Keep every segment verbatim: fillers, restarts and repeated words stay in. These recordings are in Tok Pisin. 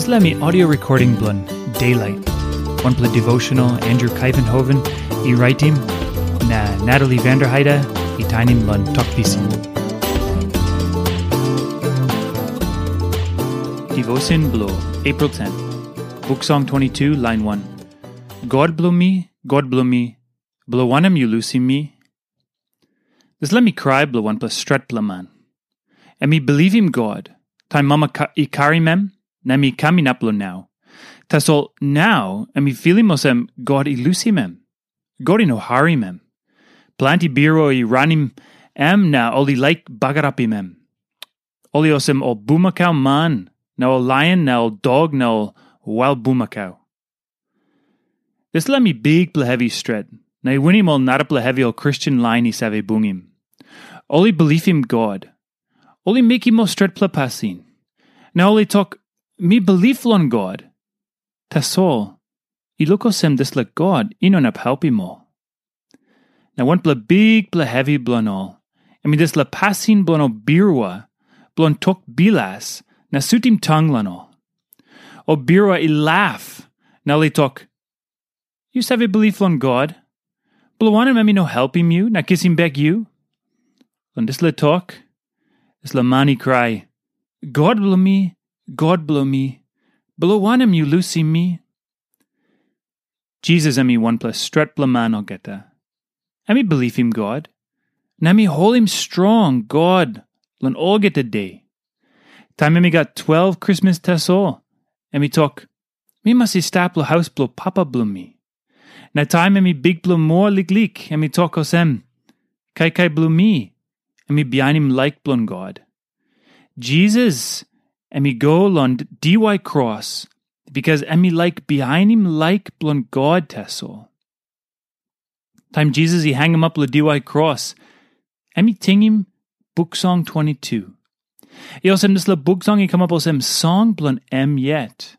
Dispela mi audio recording bilong Daylight. Wanpela devotional Andrew Kaivenhoven i raitim, na Natalie Vanderheide i tainim long Tok Pisin. Devotion bilong April ten. Buk Song twenty-two, line one. God bilong mi, God bilong mi, bilong wanem yu lusim mi? Dispela mi krai bilong wanpela stretpela man. Em i bilivim God, taim mama ka- i karim em, na em i kam inap long nau. Tasol nau em i filim olsem God i lusim em. God i no harim em. Planti birua i ranim em na ol i laik bagarapim em. Ol i olsem ol bumakau man, na ol laion, na ol dok, na ol wail bumakau. Dispela mi bikpela hevi stret, na i winim ol narapela hevi ol Kristen lain i save bungim. Ol i bilipim God. Ol i mekim ol stretpela pasin. Na ol i tok, "Mi bilip long God." Tasol, i luk olsem dispela God i no inap helpim ol. Na wanpela bikpela hevi bilong ol, em i dispela pasin bilong ol birua, bilong tok bilas, na sutim tang long ol. Ol birua i laf, na ol i tok, "Yu save bilip long God? Bilong wanem em i no helpim yu na kisim bek yu?" Long dispela tok, dispela man i krai, "God bilong mi, God bilong mi, bilong wanem yu lusim mi?" Jisas em i wanpela stretpela man olgeta. Em i bilipim God, na em i holim strong God long olgeta de. Taim em i gat twelve Krismas tasol, em i tok, "Mi mas i stap long haus bilong papa bilong mi." Na taim em i bikpela moa liklik, em i tok olsem, "Kaikai bilong mi, em i bihainim laik bilong God." Jisas em i go long diwai kros, bikas em i laik bihainim laik bilong God tasol. Taim Jisas i hangamap long diwai kros, em i tingim Buk Song twenty-two. I olsem dispela Buk Song i kamap olsem song bilong em yet.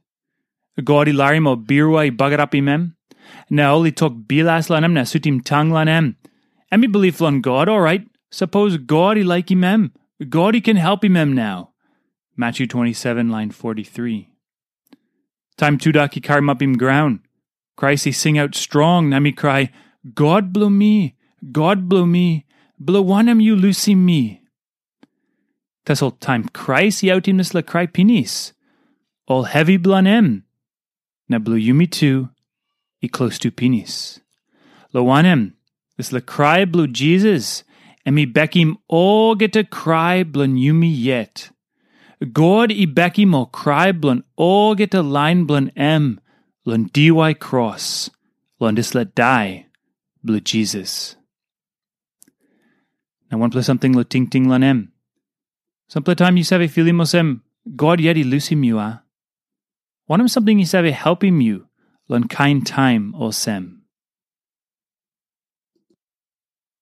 God i larim ol birua i bagarapim em, na ol i tok bilas long em na sutim tang long em. Em i bilip long God, orait, sapos God i laikim em, God i ken helpim em nau. Matthew twenty-seven, line forty-three. Taim tudak i karamapim graun, Krais i singaut strong na mi krai, "God bilong mi, God bilong mi, bilong wanem yu lusim mi?" Tasol taim Krais i autim dispela krai pinis, ol hevi bilong em, na bilong yumi tu, i klostu pinis. Long wanem, dispela krai bilong Jisas, em i bekim olgeta krai bilong yumi yet. God i bekim ol krai bilong olgeta lain bilong em long diwai kros, long dispela dai bilong Jisas. Na wanpela samting long tingting long em. Sampela taim yu save filim olsem, God yet i lusim yu, a? Wanem samting i save helpim yu long kain taim olsem?